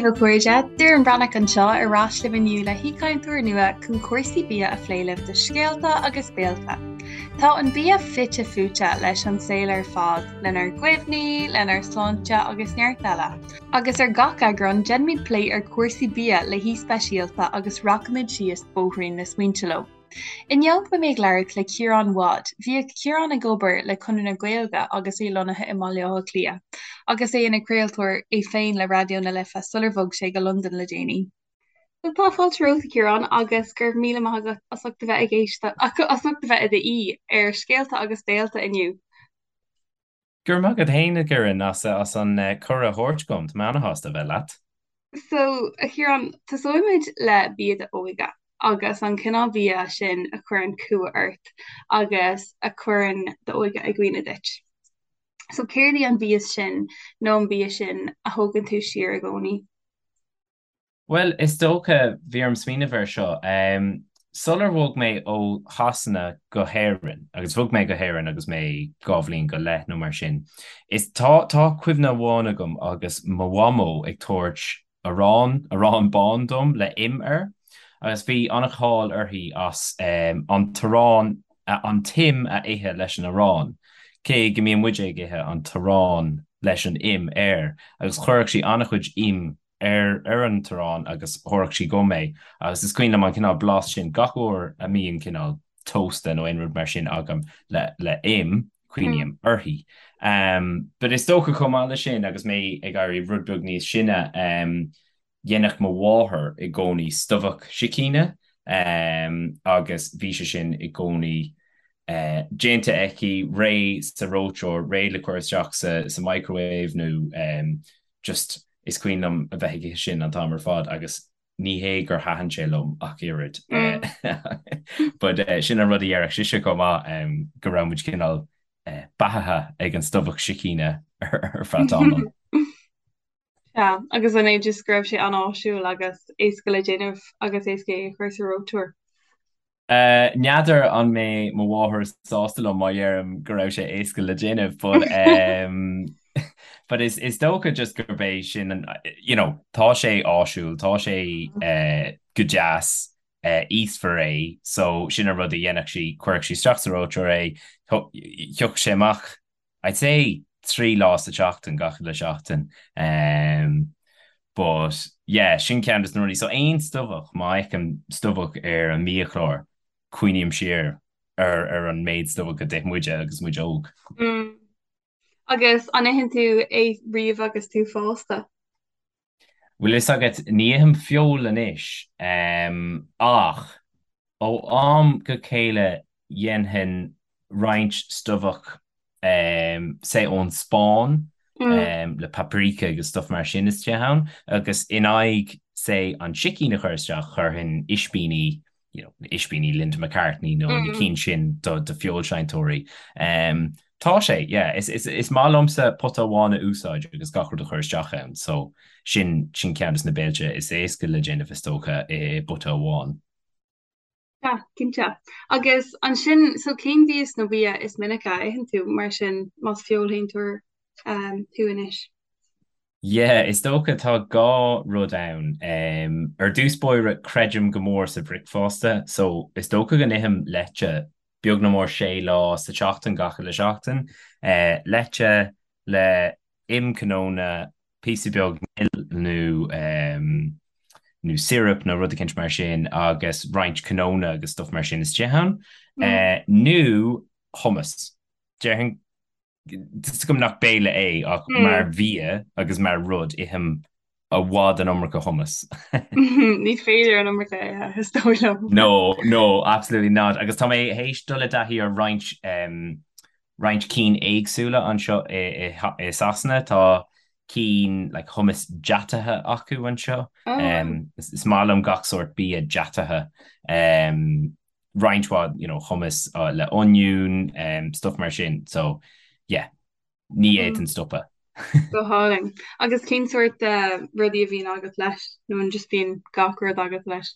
daoibh a chairde, Doireann Breathnach anseo ar ais libh inniu le haoichainteoir nua chun cúrsaí bia a phlé libh do Scéalta agus Béilte. Tá an bia fite fuaite leis an saol ar fad, lenár gcuimhní, lenár sláinte agus neart eile. Agus ar gach eagrán, déanfaimid plé ar chúrsaí bia le haoi speisialta agus rachaimid síos bóithrín na smaointe leo. Inniu beidh mé ag labhairt le Ciarán Wadd. Bhíodh Ciarán ag obair le Conradh na Gaeilge agus é lonnaithe i mBaile Átha Cliath, agus é ina chraoltóir é féin le Raidió na Life sular bhog sé go Londain le déanaí. So tá fáilte romhat, a Chiaráin, agus go raibh míle maith agat as ucht a bheith ag éisteacht, as ucht a bheith i d'aoi ar Scéalta agus Béilte inniu. Go raibh maith agat féin, a Dhoireann, as an cuireadh a thabhairt dom. Tá mé ana-shásta a bheith leat. So, a Chiaráin, tosóimid le bia d'óige agus an cineál bia sin a chuireann cumha ort agus a chuireann d'óige i gcuimhne duit. So, céard í an mhias sin nó an bia sin a thógann tú siar i gcónaí? Bhuel, is dócha, bhí orm smaoineamh air seo. Sular bhog mé ó Shasana go hÉirinn, agus bhog mé go hÉirinn agus mé 2 bhliain go leith nó mar sin, is tá, tá cuimhne amháin agam agus mo mhamó ag tabhairt arán, arán bán dom le im air, agus bhí an-cháil uirthi as an t-arán, an t-im a ithe leis an arán, cé go mbíonn muide ag ithe an t-arán leis an im air, agus chuirfeadh sí an-chuid im ar ar an t-arán agus thabharfadh sí dhom é agus is cuimhin liom an cineál blas sin gach uair a mbíonn cineál tósta nó aon rud mar sin agam le le im, cuimhním uirthi. But is dócha chomh maith leis sin agus mé ag éirí rud beag níos sine, dhéanfadh mo mháthair i gcónaí stobhach sicíne agus bhí sé sin i gcónaí déanta aici, réidh sa reoiteoir, réidh le cur isteach sa sa microwave nó just is cuimhin liom a bheith ag ithe sin an t-am ar fad agus ní hé gur thaitin sé liom ach oiread but sin an rud a dhéarfadh sise chomh maith go raibh muid cineál beathaithe ag an stobhach sicíne ar feadh tamaill. Sea, agus an é just go raibh sé an-áisiúil agus éasca le déanamh agus éasca é a chur sa reoiteoir? N'fheadar an mbeidh mo mháthair sásta liom má dheirim go raibh sé éasca le déanamh but but is is dócha just gurb é sin an you know tá sé áisiúil, tá sé go deas, íosfar é so sin an rud a dhéanfadh sí, chuirfeadh sí isteach sa reoiteoir é, thiocfadh sé amach I'd say 3 lá sa tseachtain, gach uile seachtain. But yeah, sin ceann de na rudaí. So aon stobhach, má fheicim stobhach ar an mbiachlár, cuimhním siar ar ar an méid stobhach a d'ith muide agus muid óg. Mm. Agus an itheann tú é riamh agus tú fásta? Bhfuil fhios agat, ní ithim feoil anois, ach ó am go chéile dhéanfainn roinnt stobhach, say ón Spáinn, le paprika agus stuff mar sin istigh ann, agus in aghaidh, say, an sicín a chur isteach, chuirfinn ispíní you know, ispíní Linda McCartney nó na cinn sin do do feoilséantóirí. Tá sé, yeah, is is is maith liomsa pota amháin a úsáid agus gach rud a chur isteach ann, so sin sin ceann de na béilte is éasca le déanamh is dócha i bpota amháin. Yeah, cinnte. Agus ansin, so cén mhias nó bia is minice a itheann tú mar sin más feoilséantóir thú anois? Yeah, is dócha tá dhá rud ann. Ar dtús báire, creidim go mór sa bhricfeasta, so is dócha go n-ithim leite beag nó mór sé lá sa tseachtain, gach uile seachtain. Leite le im cnónna, píosa beag mil nó nó syrup nó rud eicínt mar sin agus roinnt cnónna agus stuff mar sin istigh ann. Nó hummus. Déarfainn Tá 'fhios agam nach béile é ach mar bhia agus mar rud ithim i bhfad an iomarca hummus. Ní féidir an iomarca a ithe, is dóigh liom. No, no, absolutely not. Agus tá mé théis dul i dtaithí ar roinnt roinnt cinn éagsúla anseo i i Sasana. Tá cinn like hummus deataithe acu anseo. Is maith liom gach sórt bia deataithe. Roinnt mhaith you know hummus le oinniún, stuff mar sin so yeah ní fhéadfainn stopadh. Go hálainn. Agus cén sórt rudaí a bhíonn agat leis nó an just bíonn gach rud agat leis?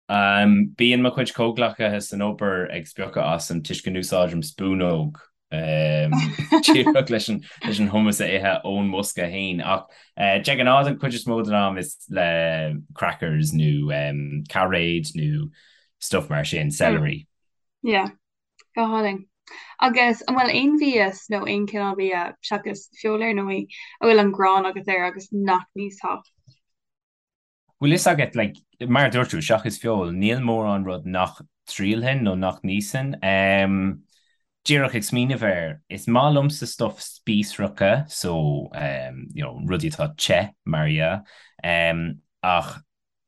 Bíonn mo chuid comhghleacaithe san obair ag spiocadh asam toisc go n-úsáidim spúnóg. Díreach leis an leis an hummus a ithe ón mbosca féin ach de ghnáth an chuid is mó den am is le crackers nó cairéid nó stuff mar sin, celery. Yeah, go hálainn. Agus an bhfuil aon mhias nó aon chineál bia, seachas feoil ar ndóigh, a bhfuil an ghráin agat air agus nach n-íosfá? Bhfuil fhios agat, like, mar a dúirt tú, seachas feoil, níl mórán rud nach dtriailfinn nó nach n-íosfainn. Em, díreach ag smaoineamh air, is maith liomsa stuff spíosracha, so, em, you know, rudaí atá te, mar dhea, em, ach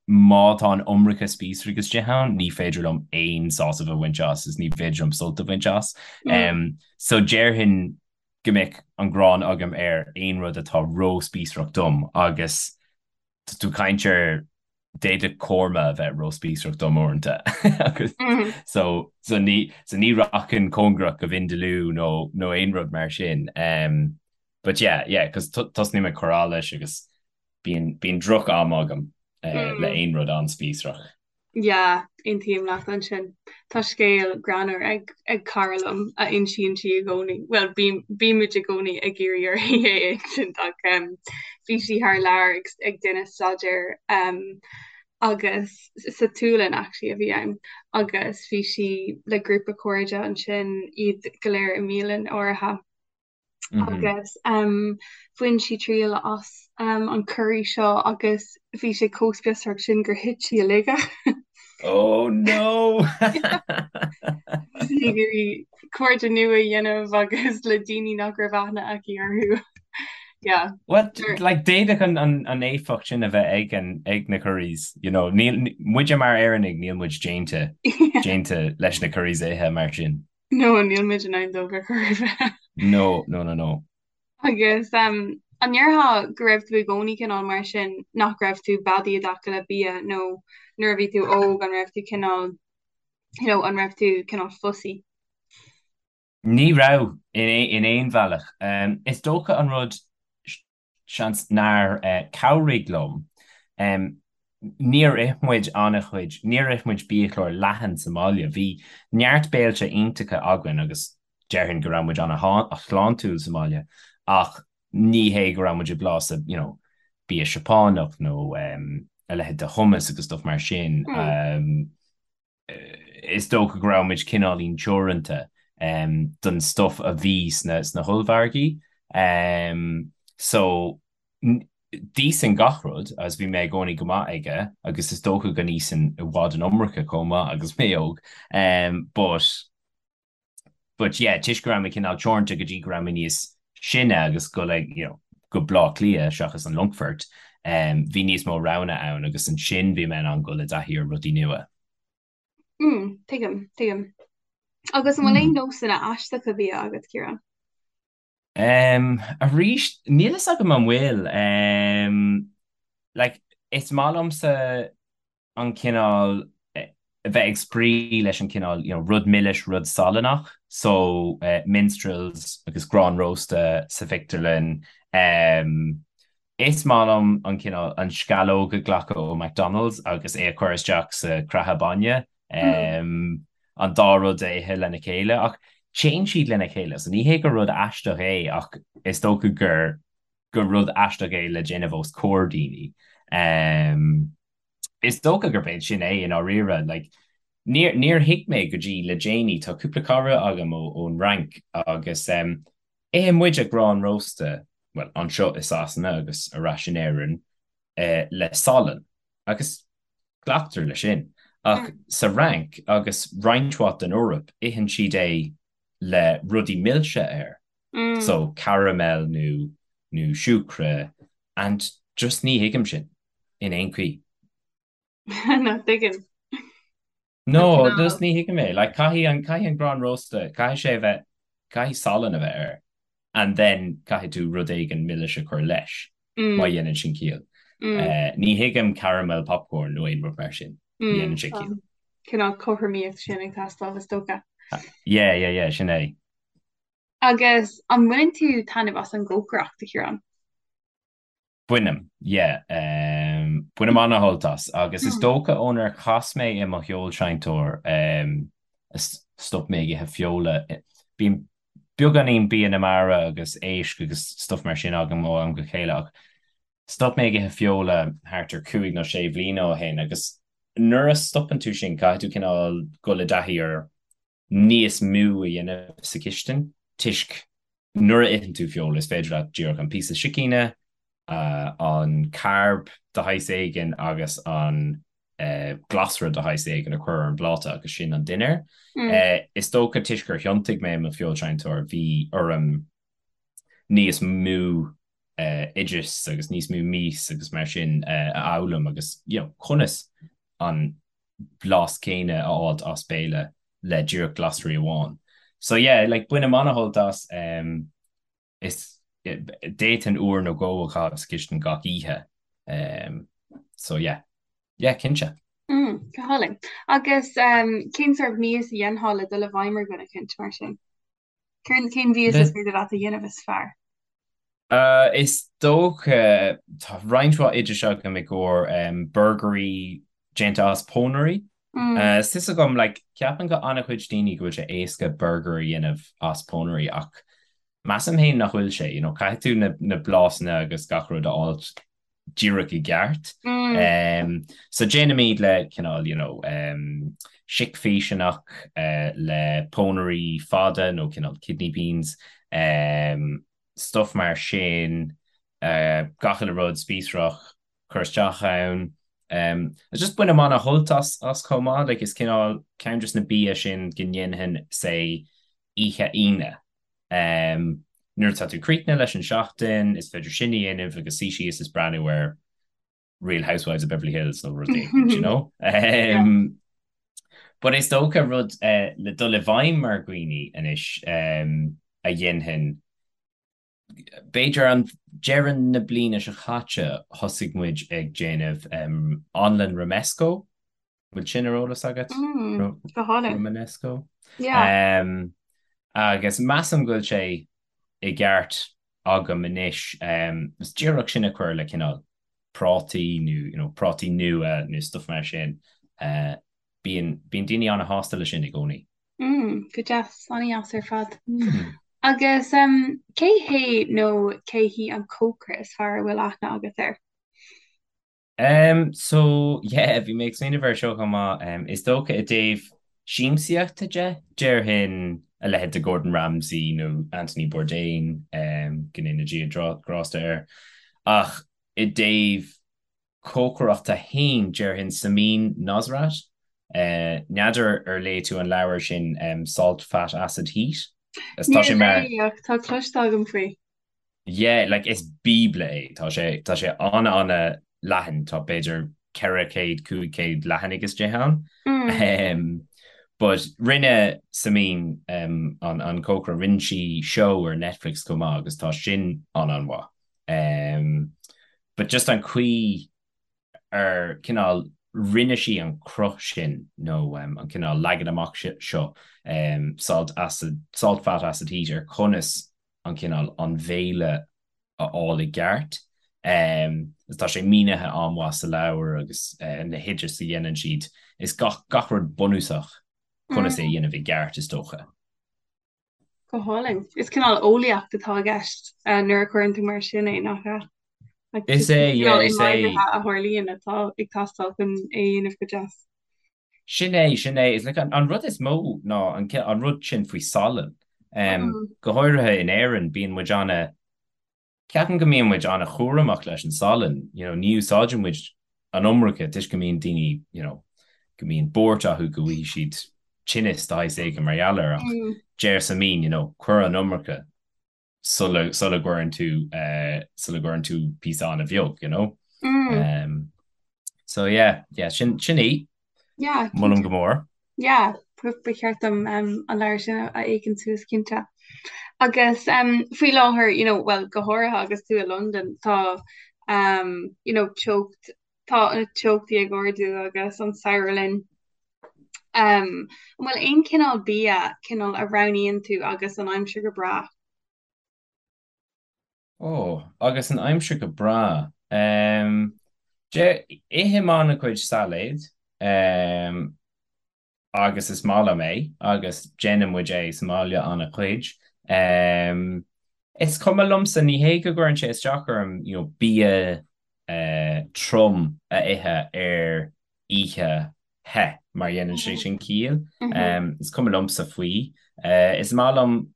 má tá an iomarca spíosraigh istigh ann, ní féidir liom aon sásamh a bhaint as is ní féidir liom sult a bhaint as. Em, so déarfainn go mbeadh an ghráin agam ar aon rud atá ró-spíosrach dom agus Tá tú ag caint ar d'fhéadfadh korma a bheith ró-spíosrach dom uaireanta agus so so ní so ní rachainn cóngarach go vindaloo nó nó aon rud mar sin. Um, but yeah, yeah, cos tosnaím ag cur allais agus bíonn bíonn droch am agam uh, le aon rud an-spíosrach. Yeah, aontaím leat ansin. Tá scéal greannmhar ag ag cara liom a insíonn sí i gcónaí, bhuel bímid i gcónaí ag iarraidh uirthi é a insint ach um, bhí sí thar lear ag, ag déanamh staidéir um, agus sa tSualainn actually a bhí ann agus bhí sí le grúpa cairde ansin iad go léir i mbialann áirithe. Agus bhain sí triail as an curry seo agus bhí sé chomh spiosrach sin gur thit sí i laige. Oh no! Bhí sí ag iarraidh cairde nua a dhéanamh agus le daoine nach raibh aithne aici orthu. Yeah. Well, like, d'fhéadfadh an, an, an éifeacht sin a bheith ag, an, ag na curries, you know, níl, muide mar Éireannaigh, níl muid déanta, déanta leis na curries a ithe mar sin. No, níl muid in ann dóibh ar chor ar bith. No, no, no, no. Agus um, an ndéarfá go raibh tú i gcónaí cineál mar sin, nach raibh tú beadaí i dtaca le bia nó nuair a bhí tú óg an raibh tú cineál, you know, an raibh tú cineál fussy? Ní raibh, in, in aon bhealach. Um, is dócha an rud seans nár chabhraigh liom. Níor ith muid an-chuid, níor ith muid biachlár leathan sa mbaile. Bhí neart béilte iontacha againn agus déarfainn go raibh muid an-shláintiúil sa mbaile ach ní hé go raibh muid ag blásadh you know bia Seapánach nó a leithéid de hummus agus stuff mar sin. Is dócha go raibh muid cineáilín teoranta don stuff a bhí sna sna hollmhargaí. So d'íosfainn gach rud agus bhí mé i gcónaí go maith aige agus is dócha go n-íosfainn i bhfad an iomarca chomh maith agus mé óg. But But yeah, toisc go raibh mé cineál teoranta go dtí go raibh mé níos sine agus go like, you know, go Bleá Cliath seachas an Longfort, um, bhí níos mó roghanna ann agus ansin bhí mé in ann dul i dtaithí ar rudaí nua. Mm, tuigim, tuigim. Agus an bhfuil aon nósanna aisteacha bia agat, Ciarán? Um, arís, níl fhios agam an bhfuil. Um, like, is maith liomsa an cineál, a bheith ag spraoi leis an cineál, you know, rud milis, rud salannach, so minstrels agus grán rósta sa phictiúrlann. Um, is maith liom an cineál, an sceallóg a ghlacadh ó McDonald's agus é a chur isteach sa chreatha bainne, um, an dá rud a ithe lena chéile, ach téann siad lena chéile, so ní hé gur rud aisteach é ach is dócha gur gur rud aisteach é le déanamh os comhair daoine. Um, is dócha gurb é sin é i ndáiríre. Like, níor, níor thuig mé go dtí le déanaí, tá cúpla cara agam ó, ón Fhrainc agus um, itheann muide grán rósta, well, anseo i Sasana agus ar ais in Éirinn, eh, le salann agus glactar leis sin. Ach sa Fhrainc agus roinnt mhaith den Eoraip, itheann siad é le rudaí milse air. So caramel nó nó siúcra and just ní thuigim sin in aon chaoi. No, tuigim. No, just ní thuigim é. Like caithfidh an caithfidh an grán rósta, caithfidh sé a bheith, caithfidh salann a bheith air and then caithfidh tú rud éigin milis a chur leis, má dhéanann sin ciall. Ní thuigim caramel popcorn nó aon rud mar sin. Ní dhéanann sé ciall. Cineál cothromaíocht sin ag teastáil is dócha. Yeah, yeah, yeah, sin é. Agus an mbaineann tú taitneamh as an gcócaireacht, a Chiaráin? Bainim, yeah. Bainim an-shult as agus is dócha ónar chas mé i mo fheoilseinnteoir a stop mé ag ithe feola. Bím. beagáinín bia na mara agus éisc agus stuff mar sin agam ó am go chéile ach stop mé ag ithe feola thart ar chúig nó sé bhliana ó shin agus nuair a stopann tú sin caithfidh tú cineál dul i dtaithí ar níos mó a dhéanamh sa chistin toisc nuair a itheann tú feoil is féidir leat díreach an píosa sicíne, an carb de shaghas éigin agus an glasra de shaghas éigin a chur ar an bpláta agus sin an dinnéar. Is dócha toisc gur thiontaigh mé i mo feoilséantóir bhí orm níos mó oideas agus níos mó mias agus mar sin a fhoghlaim agus you know conas an blas céanna a fháilt as béile le díreach glasraí amháin. So yeah, like bainim an-shult as um, is d'fhéadfainn uair nó dhó a chaitheamh sa chistin gach oíche. Um, so yeah. Yeah, cinnte. Mm, go hálainn. Agus um, cén sórt mias a dhéanfá le dul i bhfeidhm ar dhuine eicínt mar sin? Cén cén mhias is féidir leat a dhéanamh is fearr? Uh, is dócha tá roinnt mhaith oidis agam i gcomhair um, burgairí déanta as pónairí. Mm. Uh, is fios agam like, ceapann go an-chuid daoine go bhfuil sé éasca burger a dhéanamh as pónairí ach measaim féin nach bhfuil sé, you know, caithfidh tú na, na blasanna agus gach rud a fháilt díreach i gceart. Mm. So déanaimid le cineál, you know, um, sicphíseanna uh, le pónairí fada nó cineál kidney beans, um, stuff mar sin, uh, gach uile rud spíosrach cur isteach ann. Um, just bainim an-shult as, as chomh maith, like is cineál ceann des na bia sin go ndéanfainn say oíche Aoine. Nuair atá tú críochnaithe leis an seachtain, is féidir sin a dhéanamh agus suí síos is breathnú ar Real Housewives of Beverly Hills nó rud éigin, you know? But is dócha rud le dul i bhfeidhm ar dhaoine anois a dhéanfainn, b'fhéidir an deireadh na bliana seo caite thosaigh muid ag déanamh anlann romesco. Bhfuil sin ar eolas agat? Go hálainn. Romanesco. Yeah. Agus measaim go bhfuil sé i gceart agam anois. Is díreach sin a chur le cineál prátaí nó you know, prátaí nua nó stuff mar sin. Bíonn bíonn daoine an-shásta leis sin i gcónaí. Mm, go deas, an-deas ar fad. Mm. Agus um, cé hé nó cé hí an cócaire is fearr a bhfuil aithne agat air? Um, so, yeah, bhí mé ag smaoineamh air seo chomh maith. Um, is dócha i dtaobh siamsaíochta de, déarfainn a leithéid de Gordon Ramsay nó Anthony Bourdain, um, go ndéana Dia grásta air. Ach i dtaobh cócaireachta féin, déarfainn Samin Nosrat. Uh, n'fheadar ar léigh tú an leabhar sin, um, Salt, Fat, Acid, Heat? Is tá sé mar... Níor léigh, ach tá cloiste agam faoi. Yeah, like is bíobla é. Tá sé, tá sé an-an-leathan, tá b'fhéidir 400, 500 leathanaigh istigh ann. Mm. Um, but rinne Samin um, an, an cócaire, rinne sí seó ar Netflix chomh maith agus tá sin an-an-mhaith. Um, but just an chaoi ar cineál rinne sí an cruth sin nó um, an cineál leagan amach seo um, salt acid, salt fat acid heat ar conas an cineál an bhéile a fháil i gceart. Agus tá sé mínithe an-mhaith sa leabhar agus na hoidis a dhéanann siad. Is gach gach rud bunúsach conas é a dhéanamh i gceart is dócha. Go hálainn. Is cineál eolaíocht atá i gceist nuair a chuireann tú mar sin é, nach ea? Is é, yeah, is é. A tharlaíonn atá ag teastáil chun é a dhéanamh go deas. Sin é, sin é. Is like an, an rud is mó ná an, an rud sin faoi salann. Um, go háirithe in Éirinn, bíonn muid ana, ceapaim go mbíonn muid ana-chúramach leis an salann, you know, ní úsáideann muid an iomarca toisc go mbíonn daoine, you know, go mbíonn buairt acu go bhfaighidh siad tinneas de shaghas éigin mar gheall air ach deir Samin, you know, cuir an iomarca sula sula gcuireann tú sula gcuireann tú píosa an-bheag, you know? Mm. So yeah, yeah, sin sin í. Yeah. Molaim go mór. Yeah, ba cheart dom um, an leabhar sin a fhéachaint suas cinnte. Agus um, faoi láthair, you know, well, go háirithe agus tú i Londain, tá um, you know, teocht tá na teochtaí ag ardú agus an samhradh linn. Um, an bhfuil aon cineál bia cineál a roghnaíonn tú agus an aimsir go breá? Ó, agus an aimsir go breá. Um, de, ithim an-chuid sailéid, um, agus is maith liom é agus déanann muid é sa mbaile an-chuid. Um, is cuma liomsa, ní hé go gcuireann sé isteach orm, you know, bia uh, trom a ithe ar oíche the, mar dhéanann sé sin ciall. Um, is cuma liomsa faoi. Uh, is maith liom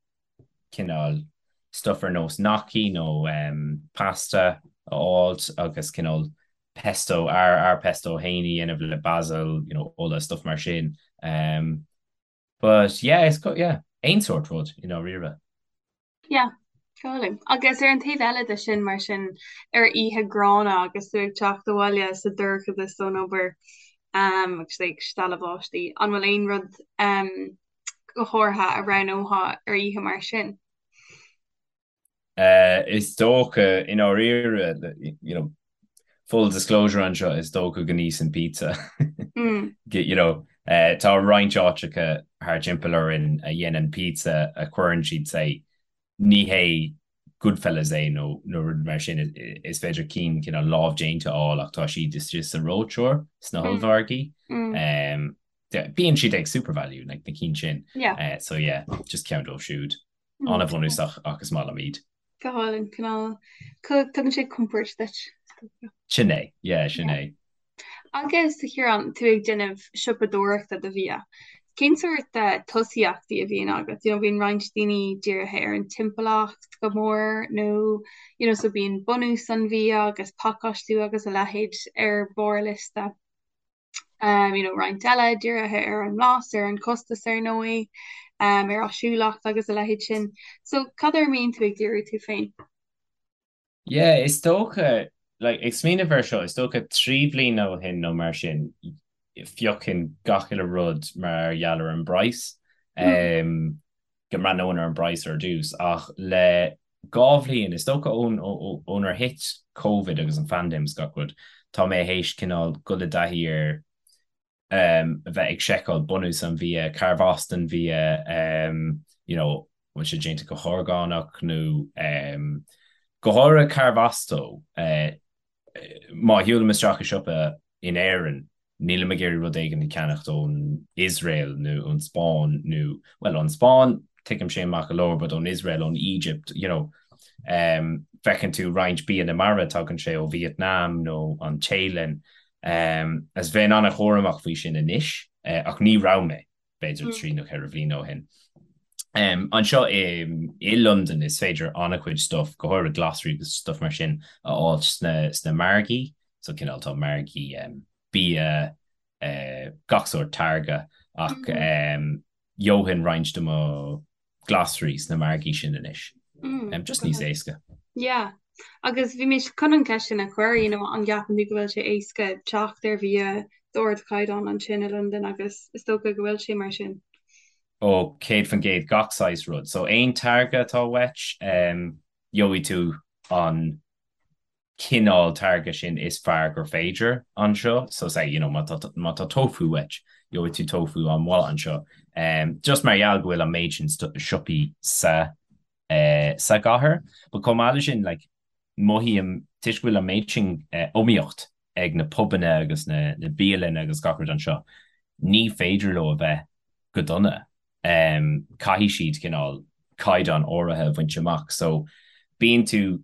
cineál stuff ar nós gnocchi nó um, pasta a fháilt agus cineál pesto, ár, ár pesto féin a dhéanamh le basil, you know, ola, stuff mar sin. Um, but yeah, is, yeah, aon sórt rud, i ndáiríre. Yeah, go hálainn. Agus ar an taobh eile de sin, mar sin, ar oíche ghránna agus tú ag teacht abhaile sa dorchadas ón obair um, agus ag stealladh báistí, an bhfuil aon rud um, go háirithe a roghnófá ar oíche mar sin? Uh, is dócha i ndáiríre, you know, full disclosure anseo, is dócha go n-íosfainn pizza. Mm. You know, uh, tá roinnt áiteacha thar timpeall orainn a dhéanann pizza a chuireann siad say, ní hé Goodfellas é nó nó rud mar sin is féidir cinn cineál lámhdéanta a fháil ach tá siad istigh sa reoiteoir sna mm. hollmhargaí. Mm. Um, bíonn siad ag SuperValu like, na cinn sin. Yeah. Uh, so yeah, just ceann dóibh siúd. Mm. An-bhunúsach ach is maith liom iad. Go hálainn, cineál tugann sé compord duit. Sin é, yeah, sin é. Agus a Chiaráin, tú ag déanamh siopadóireachta do bhia, cén sórt tosaíochtaí a bhíonn agat? You know, bíonn roinnt daoine dírithe ar an timpeallacht go mór nó you know, so bíonn bunús an bhia agus pacáistiú agus a leithéid ar barr liosta. Um, you know, roinnt eile dírithe ar an mblas, ar an costas ar ndóigh, um, ar áisiúlacht agus a leithéid sin. So cad air a mbíonn tú ag díriú tú féin? Yeah, is dócha, like, ag smaoineamh air seo, is dócha 3 bhliain ó shin nó mar sin, phiocfainn gach uile rud mar gheall ar an bpraghas. Mm. Um, go mbreathnóinn ar an bpraghas ar dtús, ach le 2 bhliain, is dócha ón ónar thit Covid agus an phaindéim is gach rud, tá mé théis cineál dul i dtaithí ar a bheith ag seiceáil bunús an bhia, carbh as don bhia, you know, bhfuil sé déanta go horgánach nó go háirithe carbh as dó. Má shiúlaim isteach i siopa in Éirinn, nílim ag iarraidh rud éigin a cheannacht ón Iosrael nó ón Spáinn nó, bhuel, ón Spáinn, tuigim sin maith go leor, but ón Iosrael, ón Egypt, you know. Um, feiceann tú roinnt bia na mara, tagann sé ó Vietnam nó an Téalainn. Um, is bheinn an-chúramach faoi sin anois, uh, ach ní raibh mé. b'fhéidir 3 nó 4 bhliain ó shin. Anseo i i Londain is féidir an-chuid stuff, go háirithe glasraí agus stuff mar sin, a fháilt sna sna margaí, so cineál tá margaí bia, gach sórt táirge ach gheobhainn roinnt de mo glasraí sna margaí sin anois. Just níos éasca. Yeah. Agus bhí mé chun an cheist sin a chur, you know, an gceapann tú go bhfuil sé éasca teacht ar bhia d'ardchaighdeán ansin i Londain agus is dócha go bhfuil sé mar sin. Ó, 100% gach saghas rud. So aon táirge atá uait, gheobhaidh tú an cineál táirge sin is fearr gur féidir anseo. So say, you know, má tá, má tá tofu uait, gheobhaidh tú tofu an-mhaith anseo. Um, just mar gheall go bhfuil an méid sin siopaí sa, eh, sa gcathair. But chomh maith le sin, like, mothaím, toisc go bhfuil an méid sin eh, iomaíocht ag na pubanna agus na, na bialanna agus gach rud anseo, ní féidir leo a bheith go dona. Um, caithfidh siad cineál caighdeán áirithe a bhaint amach. So, bíonn tú,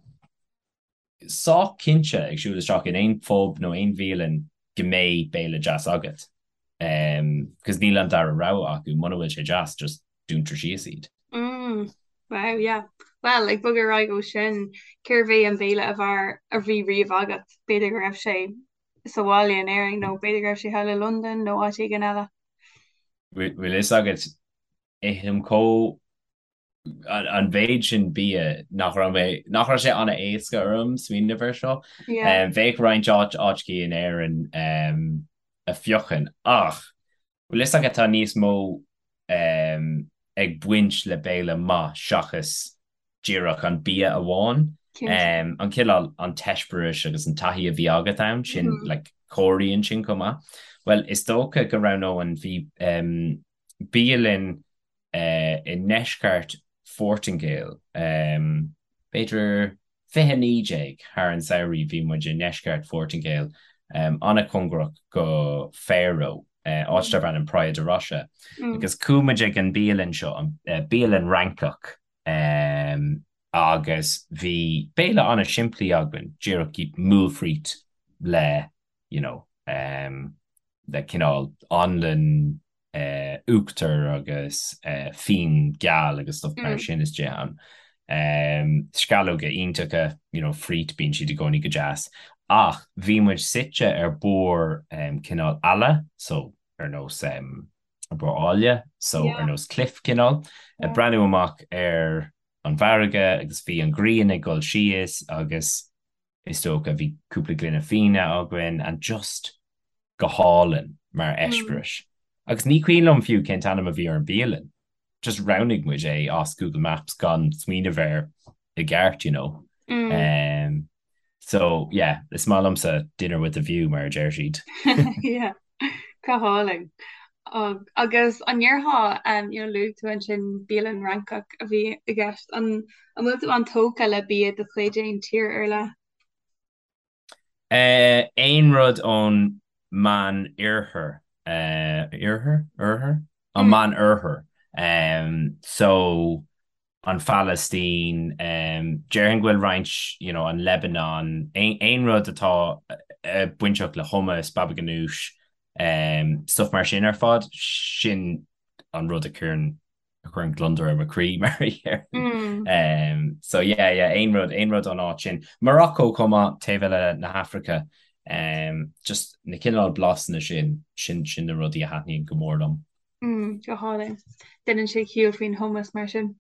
sách cinnte ag siúl isteach in aon phub nó aon bhialann go mbeidh béile deas agat. Cos níl an dara rogha acu, muna bhfuil sé deas, just dúntar síos iad. Mm, wow, yeah. Well, ag bogadh ar aghaidh ó sin, cérbh é an béile ab fhearr a bhí riamh agat? B'fhéidir go raibh sé sa bhaile in Éirinn nó b'fhéidir go raibh sé thall i Londain nó áit éigin eile. Bhfuil fhios agat, ithim chomh an mhéid sin bia nach raibh mé, nach raibh sé an-éasca orm smaoineamh air seo. Yeah. Bheadh roinnt áit, áiteachaí in Éirinn a phiocfainn ach bhfuil fhios agat tá níos mó ag baint le béile maith seachas díreach an bia amháin. Cinnte. An cineál, an t-eispéireas agus an taithí a bhí agat ann, sin, like, comhairíonn sin chomh maith. Bhuel, is dócha go roghnóinn, bhí bialann i ndeisceart Phortaingéil. B'fhéidir 2019 thar an samhraidh bhí muid i ndeisceart Phortaingéil, an-chóngarach go Faro, áit darb ainm Praia da Rocha. Agus chuaigh muid ag an bialann seo, bialann Fhrancach. Um, agus bhí béile an-simplí againn, díreach moules frites le, you know, um, le cineál anlann eh, uachtar agus eh, fíon geal agus stuff mar sin istigh ann. Um, sceallóga iontacha, you know, frít, bíonn siad i gcónaí go deas. Ach bhí muid suite ar barr um, cineál eala, so ar nós um, ar barr áille, so ar nós cliff cineál, ag breathnú amach ar an bhfarraige agus bhí an ghrian ag dul síos agus is dócha bhí cúpla gloine fíona againn and just go hálainn mar eispéireas. Agus ní cuimhin liom fiú cén t-ainm a bhí ar an bialann, just roghnaigh muid é as Google Maps gan smaoineamh air i gceart, you know. Um, so, yeah, is maith liomsa dinner with a view mar a deir siad. Yeah, go hálainn. Agus an ndéarfá, um, you know, luaigh tú ansin bialann Fhrancach a bhí i gceist, an an bhfuil tú an-tógtha le bia de chuid aon tír ar leith? Aon rud ón Meán Oirthear, Oirthear? Oirthear? An Meán Oirthear. So, an Phalaistín, déarfainn go bhfuil roinnt, you know, an Lebanon, aon rud atá bainteach le hummus, baba ganoush, stuff mar sin ar fad, sin an rud a chuireann a chuireann gliondar ar mo chroí mar a déarfainn. So yeah, yeah, aon rud, aon rud ón áit sin. Morocco chomh maith, taobh eile na hAfraice. Just na cineál blasanna sin, sin, sin na rudaí a thaitníonn go mór liom. Mm, go hálainn. Déanann sé ciall faoin hummus mar sin.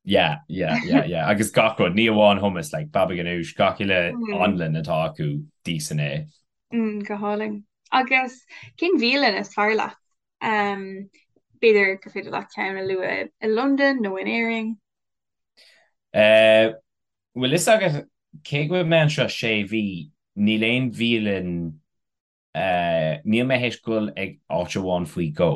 Yeah, yeah, yeah, yeah. Agus gach rud, ní amháin hummus, like baba ganoush, gach uile anlann atá acu, d'íosfainn é. Mm, go hálainn. Agus cén bhialann is fearr leat? Um, b'fhéidir gur féidir leat ceann a lua i Londain nó in Éirinn? Uh, bhfuil fhios agat cé go bhfuil mé anseo sé mhí, níl aon bhialann uh, níl mé théis dul ag áit amháin faoi dhó.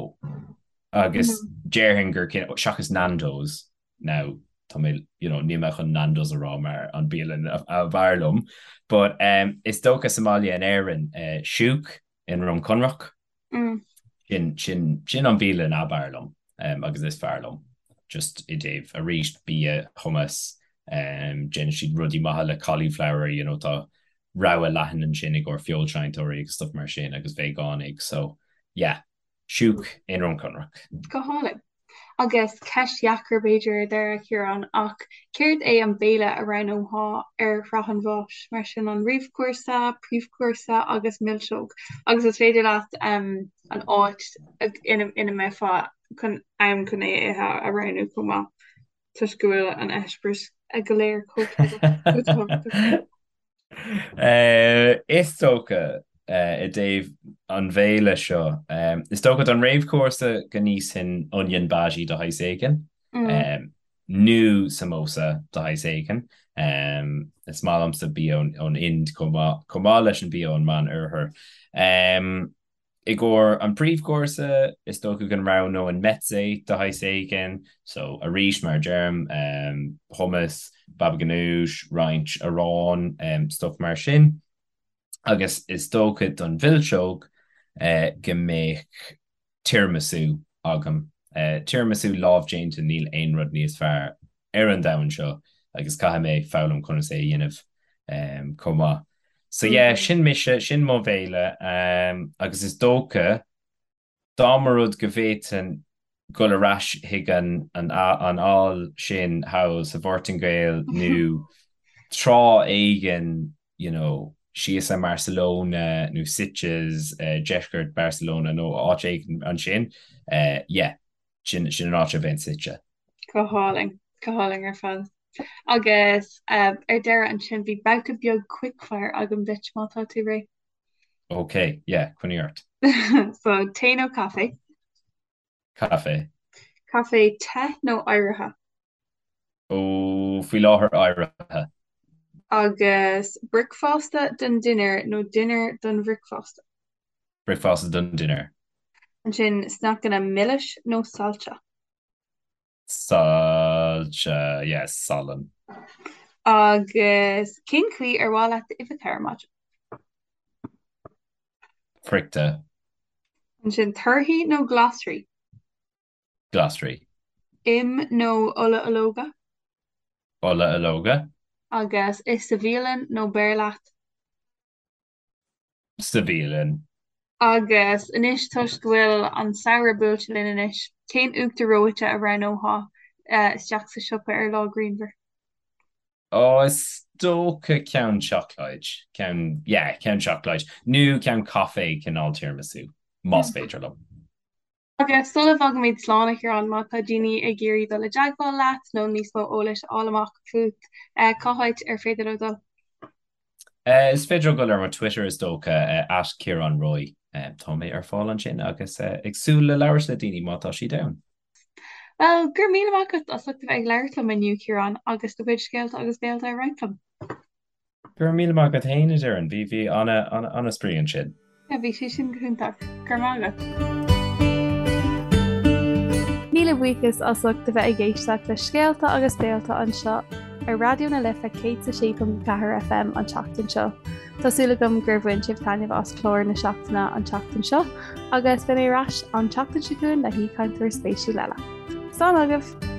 Agus déarfainn gur seachas Nando's now tá mé you know, níl mé chun Nando's a rá mar an bialann ab fhearr liom, but um, is dócha sa mbaile in Éirinn uh, Shouk i nDroim Conrach. Sin, sin, sin an bhialann ab fhearr liom um, agus is fearr liom. Just i dtaobh arís bia, hummus, um, déanann siad rudaí maithe le cauliflower, you know, tá rogha leathan ansin i gcomhair feoilséantóirí agus stuff mar sin agus veigeánaigh, so yeah, Shouk i nDroim Conrach. Go hálainn. Agus ceist dheacair b'fhéidir ar deireadh, a Chiaráin, ach céard é an béile a roghnófá ar shraith an bháis, mar sin an réamhchúrsa, príomhchúrsa agus milseog? Agus is féidir leat an áit ina mbeifeá chun ann chun é a ithe a roghnú chomh maith, toisc go bhfuil an eispéireas go léir chomh tábhachtach. Is dócha, i dtaobh an bhéile seo, is dócha don réamhchúrsa go n-íosfainn onion bhaji de shaghas éigin, nó samosa de shaghas éigin. Is maith liomsa bia ón Ind chomh maith, chomh maith leis an bia ón Meán-Oirthear. I gcomhair an príomhchúrsa, is dócha go roghnóinn mezze de shaghas éigin, so arís, mar a deirim, hummus, baba ganoush, roinnt aráin, stuff mar sin. Agus is dócha don mhilseog go mbeadh tiramisu agam. Tiramisu lámhdéanta, níl aon rud níos fearr ar an domhan seo agus caithfidh mé foghlaim conas é a dhéanamh chomh maith. So yeah, sin mise, sin mo bhéile agus is dócha dá mba rud go bhféadfainn dul ar ais chuig an an aill sin thall sa Phortaingéil nó tráth éigin you know síos i mBarcelona nó Sitges, deisceart Barcelona nó áit éigin ansin, yeah, sin sin an áit a bheinn suite. Go hálainn, go hálainn ar fad. Agus ar deireadh ansin bhí babhta beag quickfire agam duit má tá tú réidh. Ok, yeah, coinnigh ort. So, tae nó caife? Caife. Caife te nó oighrithe? Ó, faoi láthair oighrithe. Agus bricfeasta don dinnéar nó dinnéar don bhricfeasta? Bricfeasta don dinnéar. Ansin sneaiceanna milis nó saillte? Saillte, yes, salann. Agus cén chaoi ar mhaith leat d'uibheacha ar maidin? Friochta. Ansin torthaí nó glasraí? Glasraí. Im nó ola ológa? Ola ológa. Agus ith sa bhialann nó beir leat? Sa bhialann. Agus anois toisc go bhfuil an samhradh buailte linn anois, cén uachtar reoite a roghnófá isteach sa siopa ar lá grianmhar? Ó, is dócha ceann seacláid, ceann, yeah, ceann seacláid, nó ceann caife cineál tiramisu, más féidir liom. Agus sula bhfágaimid slán, a Chiaráin, má tá daoine ag iarraidh dul i dteagmháil leat nó níos mó eolais a fháil amach fút, cá háit ar féidir leo dul? Is féidir leo dul ar mo Twitter is dócha, at Ciarán Roy. Tá mé ar fáil ansin agus ag súil le labhairt le daoine má tá siad ann. Bhuel, go raibh míle maith agat as ucht a bheith ag labhairt liom inniu, Ciarán, agus do chuid scéalta agus béalta a roinnt liom. Go raibh míle maith agat féin, a Doireann. Bhí, bhí an-spraoi ansin. Yeah, bhí sé sin go hiontach. Go raibh maith agat. Míle buíochas as ucht a bheith ag éisteacht le Scéalta agus Béalta anseo ar Raidió na Life 106.4 FM an tseachtain seo. Tá súil agam gur bhain sibh taitneamh as clár na seachtaine an tseachtain seo agus beidh mé ar ais an tseachtain seo chugainn le haoichainteoir spéisiúil eile. Slán agaibh!